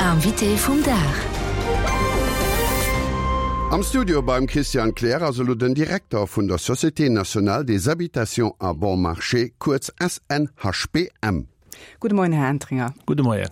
Invité vum Dag. Am Studio beim Christian Kleer ass elo den Direkter vun der Société Nationale des Habitations à Bon Marché, kuerz SNHBM. Gudde Moien, Här Entringer. Gudde Moien.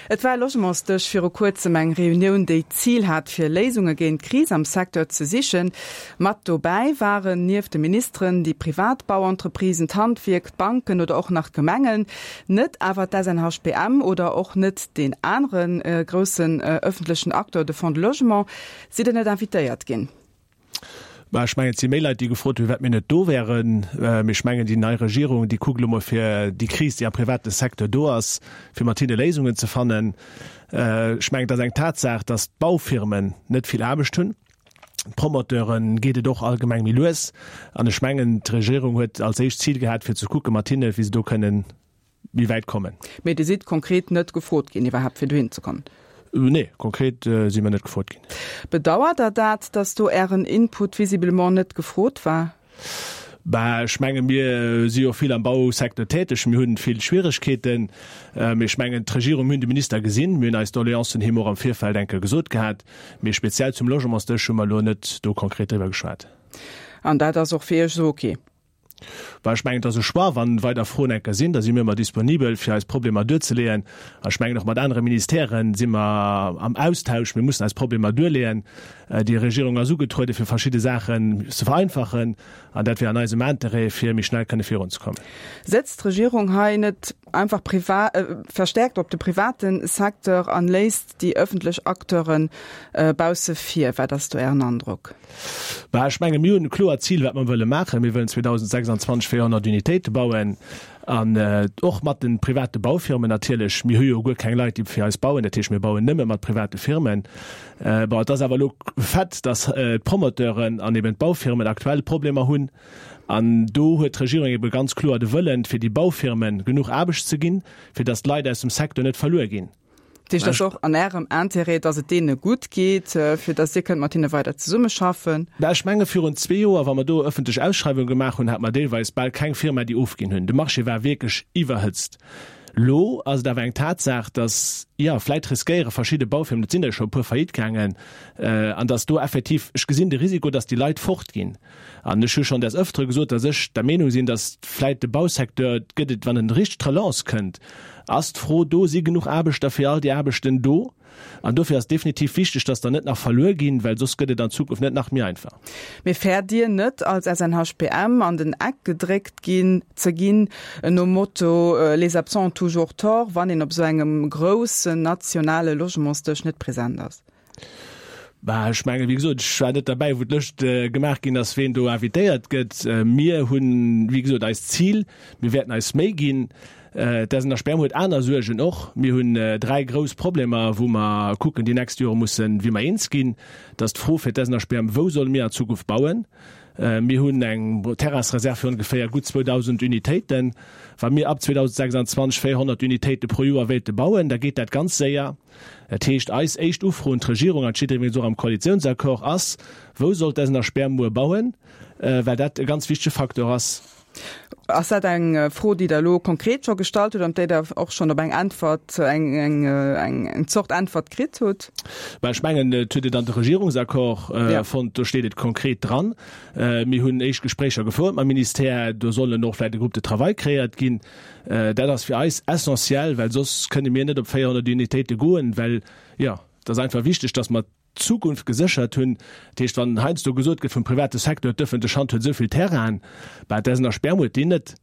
Et war e Logementsdësch viru kuerzem, eng Reunioun, déi d'Zil hat, fir Léisunge géint d'Kris am Secteur ze sichen. Mat dobäi waren nieft de Ministeren déi privat Bauentreprisen, d'Handwierk, d'Banken oder och nach d'Gemengen. Net awer d'SNHBM oder och net deen anere groussen ëffentlechen Acteur, de Fonds de Logement. Sidd Der net invitéiert ginn? Bah, ech mengen, et si méi Leit, déi gefrot hunn, firwat mir net do wären. Mee ech mengen, déi nei Regierung, déi kuckt elo mol fir déi Kris, déi am private Secteur do ass, fir mat hinne Léisungen ze fannen. Ech mengen, et ass eng Tatsaach, datt d'Baufirmen net vill Aarbecht hunn. D'Promoteure geet et och allgemeng méi lues. An ech mengen, d'Regierung huet als éischt Zil gehat, fir ze kucke mat hinne, wéi se do kënnen méi wäit kommen. Mee Dir sidd konkret net gefrot ginn iwwerhaapt fir dohin ze kommen? Nee, konkret si mer net gefrot ginn. Bedauert Der dat, datt do Ären Input visiblement net gefrot war? Bah, ech menge mir si jo vill am Bausecteur täteg, mir hunn vill Schwieregkeeten. Mee ech mengen d'Regierung, mir hunn de Minister gesinn, mir hunn eis Doleancen him och am Virfeld eng Kéier gesot gehat. Mee speziell zum Logementsdësch hu mer elo net do konkret driwwer geschwat. An dat ass och fir Iech esou ok? Well ech mengen, et ass e Choix. Wa weider Froen enker sinn, da si mir ëmmer disponibel, fir eis Problemer duerzeleeën. An ech mengen, och mat anere Ministèrë si mer am Austausch. Mir mussen eis Problemer duerleeën. Déi Regierung ass ugetrueden, fir verschidde Saachen ze vereinfachen. An dat wär an eisem Interêt, fir méi schnell kënne virunzekommen. Setzt d'Regierung hei net einfach verstärkt op de private Secteur an léisst déi ëffentlech Acteure bausse vir? Wat ass do Ären Androck? Bah, ech menge mir hunn e kloert Zil, wat mer wëlle maachen. Mir wëllen 2026 400 Unitéite bauen an och mat de private Baufirmen natierlech. Mir hu jo guer keng Leit, déi fir eis bauen. Dat heescht, mir bauen nëmme mat private Firmen. Bon, et ass awer elo Fait, datt d'Promoteuren an eben d'Baufirmen aktuell Problemer hunn. An do huet d'Regierung ebe ganz kloer de Wëllen, fir déi Baufirme genuch Aarbecht ze ginn, fir datt d'Leit aus dem Secteur net verluer ginn. Dat heescht, et ass och an Ärem Intérêt, datt et deene gutt geet, fir datt Dir kënnt mat hinne weider zesummeschaffen. Mä ech menge virun zwee Joer, wa mer do ëffentlech Ausschreiwunge gemaach hunn, hate mer deelweis bal keng Firma, déi ofginn hunn. De Marché war wierklech iwwerhëtzt. Elo ass et awer eng Tatsaach, datt, jo, vläit riskéiere verschidde Baufirmen, et sinn der jo scho e puer faillite gaangen, an datt do effektiv, ech gesinn de Risiko, datt déi Leit fortginn. An ech hu schonn des Ëftere gesot, datt ech der Meenung sinn, datt vläit de Bausecteur, gëtt et, wann en richteg d'Relance kënnt, ass d'Fro do, si genuch Aarbechter fir all déi Aarbechten do? An dofir ass et definitiv wichteg, datt der net nach verluer ginn, well soss gëtt et an Zukunft net nach méi einfach. Mee fäert Dir net, als SNHBM an den Eck gedréckt ginn ze ginn, nom Motto les absents ont toujours tort, wann een op esou engem groussen nationale Logementsdësch net present ass? Bah, ech mengen, wéi gesot, ech war net derbäi, wou d'Lëscht gemaach ginn ass, ween do invitéiert gëtt. Mir hunn, wéi gesot, eist Zil, mir wäerten eis Méi ginn. D'SNHBM huet aner Suergen och. Mir hunn dräi grouss Problemer, wou mer kucken, déi nächst Jore mussen, wéi mer eens ginn. Dat ass d'Fro fir d'SNHBM, Wou solle mir an Zukunft bauen? Mir hunn eng Terrainsreserv fir ongeféier gutt 2.000 Unitéiten. Wa mir ab 2026 400 Unitéite pro Joer wéilte bauen, da geet dat ganz séier. Dat heescht, eis éischt Ufro un d'Regierung, an et steet iwwregens och am Koalitiounsaccord, ass, Wou soll d'Esner Sperr muer bauen? Well dat e ganz wichtege Facteur ass. Ass dat eng Fro, déi Der elo konkret scho gestallt hutt an op déi Der och schonn op eng Äntwert, eng Zort Äntwert kritt hutt? Mä ech mengen, et huet et an de Regierungsaccord fonnt, do steet et konkret dran. Mir hunn éischt Gespréicher gefouert mam Ministère, do sollen och vläicht e Groupe de travail kreéiert ginn. Dat ass fir eis essentiell, well soss kënne mir net op 400 Unitéite goen, well, jo, et ass einfach wichteg, dass mer d'Zukunft geséchert hunn. Dat heescht, wann heiansdo gesot gëtt vum private Secteur, d'ëffentlech Hand huet esou vill Terrainen, bah, d'SNHBM huet déi net.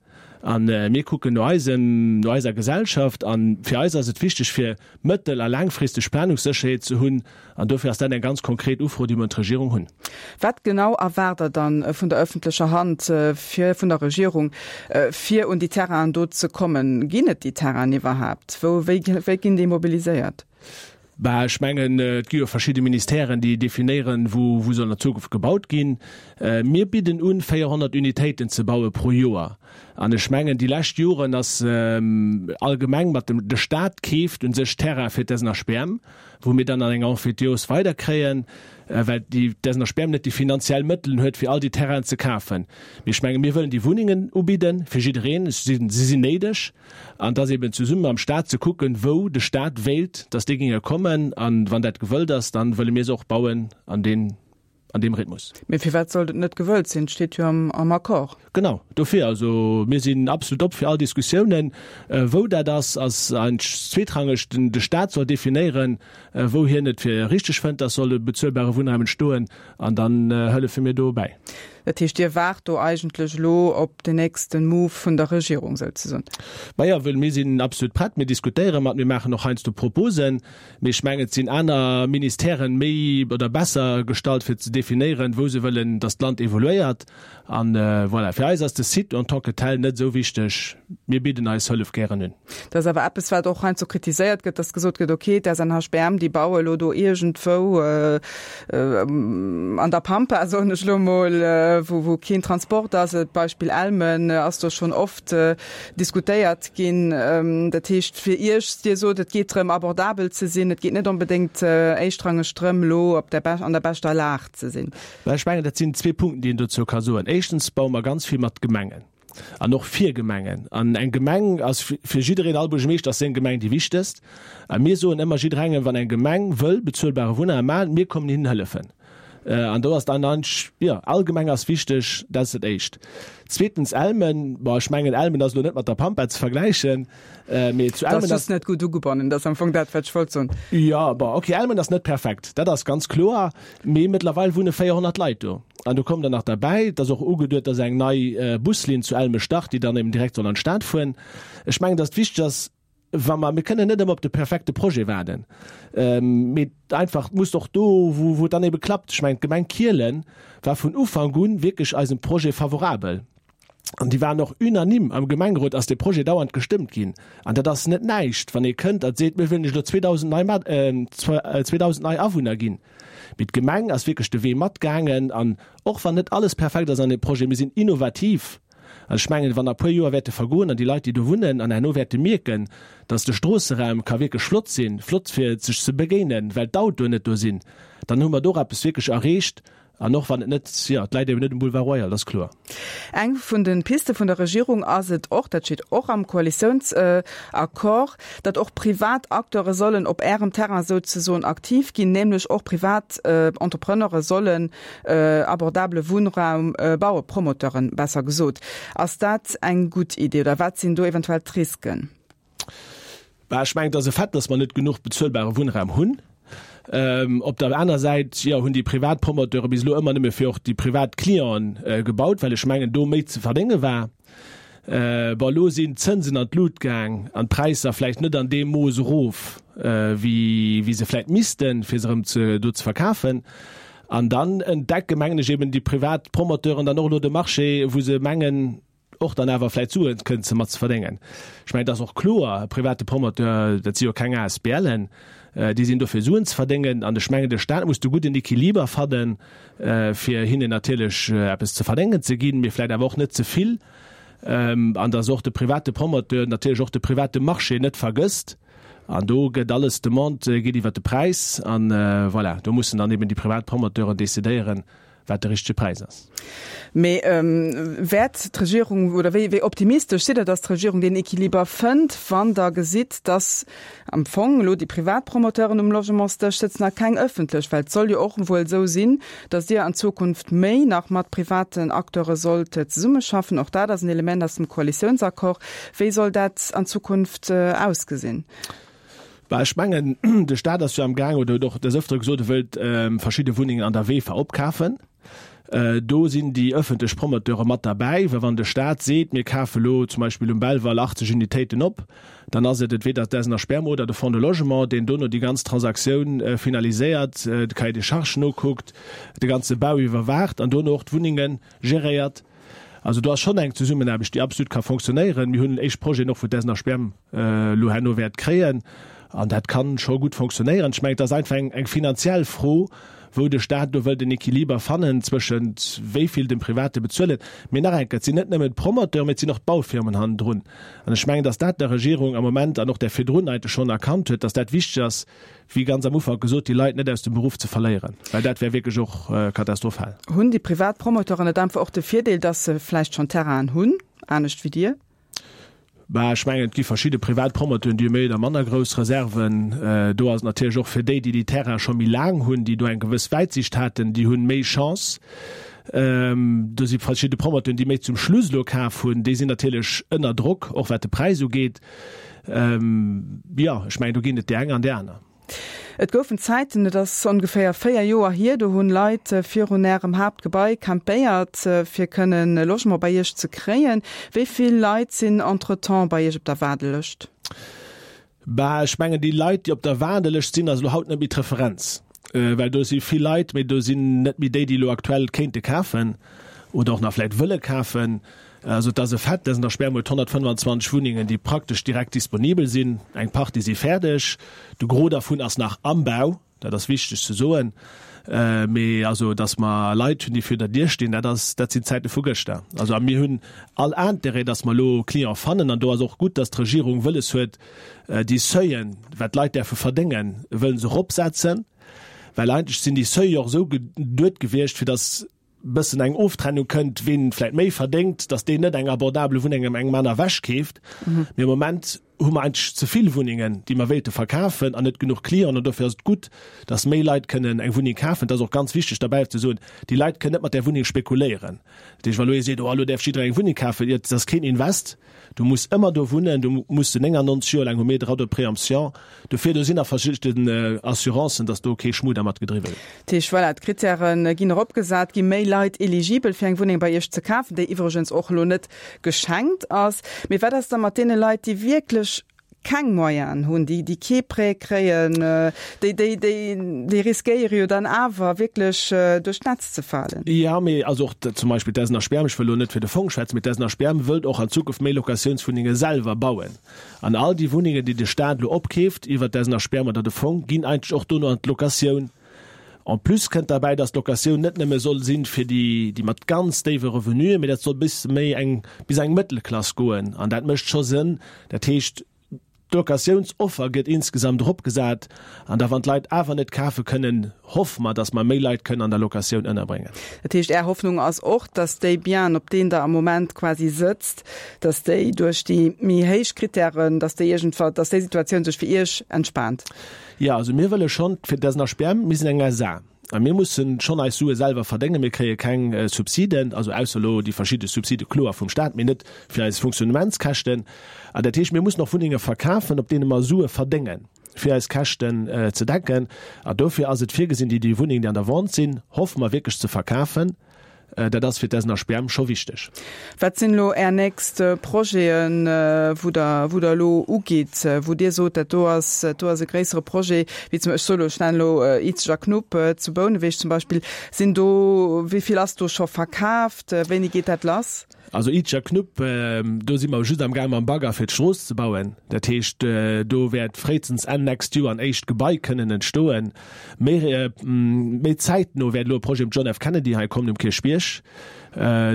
A mir kucken no eisem, no eiser Gesellschaft a fir eis ass et wichteg, fir mëttel a laangfristeg Planungssécherheet ze hunn. An dofir ass dat eng ganz konkret Ufro, déi mer un d'Regierung hunn. Wat genau erwaart Der dann vun der öffentlecher Hand, fir, vun der Regierung, fir un déi Terrainen do ze kommen? Ginn et déi Terrainen iwwerhaapt? Wou, wéi, wéi ginn déi mobiliséiert? Bah, ech mengen, et gi jo verschidde Ministèren, déi definéieren, wou, wou soll an der Zukunft gebaut ginn. Mir bidden un, 400 Unitéiten ze baue pro Joer. An ech mengen, déi lescht Joren ass allgemeng mat dem, de Stat keeft u sech Terrain fir d'SNHBM, wou mir dann an enger Emphytéose weiderkréien, well déi d'SNHBM net déi finanziell Mëttelen huet, fir all déi Terrainen ze kafen. Mee ech menge mir wëllen déi Wunnengen ubidde fir jiddereen. Si sinn néideg. An et ass eben zesumme mam Stat ze kucken, wou de Stat wéilt, dass déi géinge kommen. A wann dat gewëllt ass, dann wëlle mir se och bauen an deen, an deem Rhythmus. Mee firwat sollt et net gewëllt sinn? Et steet jo am Accord. Genau, dofir. Also mir sinn absolut op fir all Diskussiounen. Wou dat ass, ass eigentlech zweetrangeg. De Stat soll definéieren, wou hien et fir richteg fënnt, dass soll e bezuelbare Wunnraum entstoen, an dann hëllefe mir do bäi. Dat heescht, Dir waart do eigentlech elo op den nächste Move vun der Regierung souzesoen? Majo, well mir sinn absolut prett. Mir diskutéiere mat, mir maachen och heiansdo Proposen. Mee ech mengen, et sinn aner Ministèren méi oder besser gestallt, fir ze definéieren, wou se wëllen, dass d'Land evoluéiert. An voilà, fir eis ass de Site en tant que tel net esou wichteg. Mir bidden eis Hëllef gären un. Dat ass awer eppes, wat och heiansdo kritiséiert gëtt, dass gesot gëtt, okay, d'SNHBM, déi baue elo do iergendwou an der Pampa, soen ech elo emol, wou keen Transport ass. D'Beispill Elmen ass do schonn oft diskutéiert ginn. Dat heescht fir Iech, Dir sot, et geet drëm, abordabel ze sinn, et geet net onbedéngt éischtrangeg drëm, elo op der an der beschter Lag ze sinn. Well ech mengen, dat sinn zwee Punkten, déi een dozou ka soen. Éischtens baue mer ganz vill mat Gemengen an och fir Gemengen. An eng Gemeng ass fir jiddereen, all Buergermeeschter ass seng Gemeng déi wichtegst. A mir soen ëmmer jidderengem, wann eng Gemeng wëll bezuelbare Wunnraum maachen, mir kommen hinnen hëllefen. An do ass dann eigentlech, jo, all Gemeng ass wichteg, dat ass dat Éischt. Zweetens Elmen, bon, ech mengen Elmen ass elo net mat der Pampa ze vergläichen, mee zu Elmen ass. Dat ass just net gutt ugebonnen, dat ass am Fong dat, wat ech wollt soen. Jo, bon, okay, Elmen ass net perfekt, dat ass ganz kloer, mee mëttlerweil wunne 400 Leit do. An do kommt dann nach derbäi, et ass och ugeduet, dass eng nei Buslinn zu Elme start, déi dann eben direkt soll an d'Stad fueren. Ech mengen, dass et wichteg ass, wa mer, mir kënnen net ëmmer op de perfekte Projet waarden, mee einfach, et muss och do, wou, wou et dann ebe klappt. Ech mengen, d'Gemeng Kielen war vun Ufank un wierklech eisem Projet favorabel an déi waren och unanime am Gemengerot ass dee Projet dauernd gestëmmt ginn. An dat ass net näischt, wann ee kënnt a seet, mir wëllen lech elo 2.000 nei Mat, 2.000 nei Awunner ginn. Mee d'Gemeng ass wierklech de Wee matgaangen an och wann net alles perfekt ass an deem Projet, mir sinn innovativ. An ech mengen, wann a puer Joer wäerte vergoen an déi Leit, déi do wunnen, an herno wäerte mierken, dass de Stroosseraum ka wierklech flott sinn, flott fir sech ze begéinen, well d'Autoen net do sinn, dann hu mer do och eppes wierklech erreecht. An och wann et net, jo, et läit eben net um Boulevard Royal, dat ass kloer. Eng vun de Piste vun der Regierung ass et och, dat steet och am Koalitiounsaccord, datt och privat Acteure sollen op Ärem Terrain souzesoen aktiv ginn, nämlech och privat Entrepreneure sollen abordabele Wunnraum bauen, Promoteuren besser gesot. Ass dat eng gutt Idee oder wat sinn do eventuell d'Risken? Bah, ech mengen, et ass e Fait, datt mer net genuch bezuelbare Wunnraum hunn. Op der aner Säit, jo, hunn déi privat Promoteure bis elo ëmmer nëmme fir och déi privat Clienten gebaut, well ech mengen, do méi ze verdénge war. Bon, elo sinn d'Zënsen an d'Lut gaang an d'Präisser vläicht net an deem Mooss erof, wéi wéi se vläicht missten, fir se erëm ze do ze verkafen. An dann entdecke mengen ech eben déi privat Promoteuren dann och elo de Marché, wou se mengen, och dann awer vläicht Sue kënnen ze mat ze verdéngen. Ech mengen, et ass och kloer, e private Promoteur, dat si jo keng ASBLen, déi sinn do fir Suen ze verdéngen. An ech mengen, de Stat muss de gudden Equiliber fannen, fir hinnen natierlech eppes ze verdéngen ze ginn, mee vläicht awer och net ze vill, an dass och de private Promoteur natierlech och de private Marché net vergësst. An do gëtt alles, d'Demande geet iwwert de Präis an voilà, do mussen dann eben déi privat Promoteuren decidéieren, wat de richtege Präis ass. Mee wäert d'Regierung, oder wéi wéi optimistesch sidd Der, datt d'Regierung deen Equiliber fënnt, wann Der gesitt, datt am Fong elo déi privat Promoteuren um Logementsdësch sëtzen a keng ëffentlech? Well et soll jo och wuel esou sinn, datt Dir an Zukunft méi nach mat privaten Acteure sollt zesummeschaffen. Och dat ass en Element aus dem Koalitiounsaccord. Wéi soll dat an Zukunft ausgesinn? Bah, ech mengen, de Staat ass jo am Gaang oder huet och des Ëftere gesot, e wëllt verschidde Wunnengen an der VEFA opkafen. Do sinn déi ëffentlech Promoteure mat derbäi, well wann de Staat seet, mir kafe lo zum Beispill um Belval 80 Unitéiten op, dann ass et entweder d'SNHBM Spermo oder de Fonds de Logement, deen dono déi ganz Transaktioun finaliséiert, de Cahier des charges nokuckt, de ganze Bau iwwerwaacht an dono och d'Wunnenge geréiert. Also do ass schonn eng Zesummenaarbecht, déi absolut ka fonctionnéieren. Mir hunn éischt Projeten och, wou d'SNHBM elo herno wäert kréien. An dat ka scho gutt fonctionnéieren. Ech mengen, et ass einfach eng finanziell Fro. wou de Staat do wëllt en Equiliber fannen zwëschent wéi vill dem Private bezuelen. Mee nach eng Kéier, et sinn net nëmmen d'Promoteuren, mee et sinn och d'Baufirmen hannendrun. An ech mengen, dass dat der Regierung am Moment an och där virdrun eigentlech schonn erkannt huet, dass dat wichteg ass, wéi ganz am Ufank gesot, déi Leit net aus dem Beruff ze verléieren, well dat wär wierklech och katastrophal. Hunn déi privat Promoteuren net einfach och de Virdeel, dass se vläicht schonn Terrainen hunn, anescht wéi Dir? Bah, ech mengen, et gi verschidde privat Promoteuren, déi hu méi oder manner grouss Reserven. Do ass et natierlech och fir déi, déi déi Terraine scho méi laang hunn, déi do eng gewëss Wäitsiicht haten, déi hunn méi Chance. Do si verschidde Promoteuren, déi méi zum Schluss elo kaf hunn, déi sinn natierlech ënner Drock, och wat de Präis ugeet. Jo, ech mengen, do ginn et déi eng an déi aner. Et goufen Zäiten, et ass ongeféier 4 Joer hier, do hunn Leit virun Ärem Haaptgebai campéiert, fir kënnen e Logement bei Iech ze kréien. Wéi vill Leit sinn entretemps bei Iech op der Waardelëscht? Bah, ech mengen, déi Leit, déi op der Waardelëscht sinn, ass elo haut net méi d'Referenz. Well do si vill Leit, mee do sinn net méi déi, déi elo aktuell kéinte kafen oder och nach vläicht wëlle kafen. Also et ass e Fait, dass an der Sperm huet 125 Wunnengen, déi praktesch direkt disponibel sinn. Eng Partie si fäerdeg, de Gros dervun ass nach am Bau, dat ass wichteg ze soen. Mee also, dass mer Leit hunn, déi vir der Dier stinn, dat ass, dat sinn d'Zäite vu gëschter. Also a mir hunn all Intérêt, dass mer elo Client fannen. An do ass och gutt, dass d'Regierung wëlles huet, déi Seuilen, wat d'Leit däerfe verdéngen, wëllen se eropsetzen. Well eigentlech sinn déi Seuile och esou geduet gewiescht, fir dass bëssen eng Oftrennung kënnt, ween vläit méi verdéngt, dass deen net eng abordable Wunneng ëm engem aner ewech keeft. Mee am Moment hu mer eigentlech ze vill Wunnengen, déi mer wéilte verkafen an net genuch Clienten. An dofir ass et gutt, dass méi Leit kënnen eng Wunneng kafen. Et ass och ganz wichteg derbäi ze soen, déi Leit kënnen net mat där Wunneng spekuléieren. Dat heescht, wa lo ee seet, oh elo däerf jidderee eng Wunneng kafen, jo, dat ass keen Invest. Du muss ëmmer do wunnen, du muss se 99 Joer laang hu mir Droit de préemption. Dofir, do sinn nach verschidden Assurancen, dass do kee Schmu dermat gedriwwe gëtt. Dat heescht, voilà, d'Krittäre ginn eropgesat, gi méi Leit eligibel fir eng Wunneng bei Iech ze kafen, déi iwwregens och elo net geschenkt ass. Mee wat ass da mat deene Leit, déi wierklech keng Moyenen hunn, déi, déi kee Prêt kréien, déi, déi, déi, déi riskéiere jo dann awer wierklech duerch d'Netz ze falen? Jo, mee also och zum Beispill d'SNHBM, ech wëll elo net fir de Fong schwätzen, mee d'SNHBM wëllt och an Zukunft méi Locatiounswunnenge selwer bauen. An all déi Wunnengen, déi de Staat elo opkeeft iwwert d'SNHBM oder de Fong, ginn eigentlech och dono an d'Locatioun. En plus kënnt derbäi, dass d'Locatioun net nëmme soll sinn fir déi, déi mat ganz déiwe Revenuen, mee dat soll bis méi eng, bis eng Mëttelklass goen. An dat mécht scho Sënn. Dat heescht, d'Locatiounsoffer gëtt insgesamt eropgesat. An da wann d'Leit awer net kafe kënnen, hoffe mer, dass mer méi Leit kënnen an der Locatioun ënnerbréngen. Dat heescht, Är Hoffnung ass och, dass déi Bienen, op deenen Der am Moment quasi sëtzt, dass déi duerch déi méi héich Kritären, dass déi iergendwa, dass déi Situatioun sech fir Iech entspaant? Jo, also mir wëlle schonn, fir d'SNHBM, mir sinn eng SA a mir mussen schonn eis Sue selwer verdéngen. Mir kréie keng Subsiden, also ausser elo déi verschidde Subside kloer vum Staat, mee net fir eis Fonctionnementskäschten. An dat heescht, mir mussen och Wunnenge verkafen, op deene mer Sue verdéngen, fir eis Käschten ze decken. An dofir ass et virgesinn, déi déi Wunnengen, déi an der Vente sinn, hoffe mer wierklech ze verkafen. Dat ass fir d'SNHBM scho wichteg. Wat sinn elo Är nächst Projeten, wou Der, wou Der elo ugitt, wou Dir sot, dat do ass, dat do ass e gréissere Projet, wéi zum, ech soe elo, ech nennen elo Izeg a Knupp zu Bouneweg zum Beispill. Sinn do, wéi vill ass do scho verkaaft? Wéini geet dat lass? Also Izeg a Knupp, do si mer just am gaang mam Bagger fir d'Strooss ze bauen. Dat heescht, do wäert fréistens Enn nächst Joer en éischt Gebai kënnen entstoen. Méi méi zäitno wäert elo e Projet um John F. Kennedy hei kommen um Kierchbierg.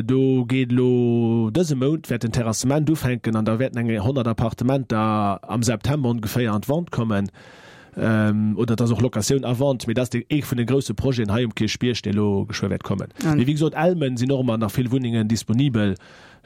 Do geet elo dëse Mount wäert den Terrassement ufänken an da wäerten eng 100 Appartementer am September ongeféier an d'Vente kommen. Oder et ass och Locatioun à vente, mee dat ass dee ee vun de grousse Projeten hei um Kierchbierg, dee elo geschwë wäert kommen. Mee wéi gesot, Elmen sinn och ëmmer nach vill Wunnengen disponibel.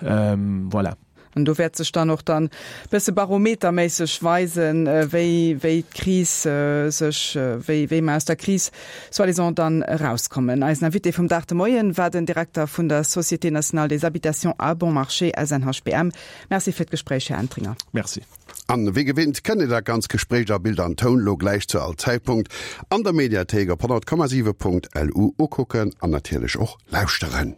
Voilà. An do wäert sech dann och dann bësse barometerméisseg weisen, wéi, wéi d'Kris sech, wéi, wéi mer aus der Kris soi-disant dann erauskommen. Eisen Invité vum Dag de Moien war den Direkter vun der Société nationale des habitations à bon marché, SNHBM. Merci fir d'Gespréich, Här Entringer. Merci. An wéi gewinnt kënnt Dir dat ganz Gespréich a Bild an Toun lo gläich zu all Zäitpunkt an der Mediathéik op 100,7.lu ukucken an natierlech och lauschteren.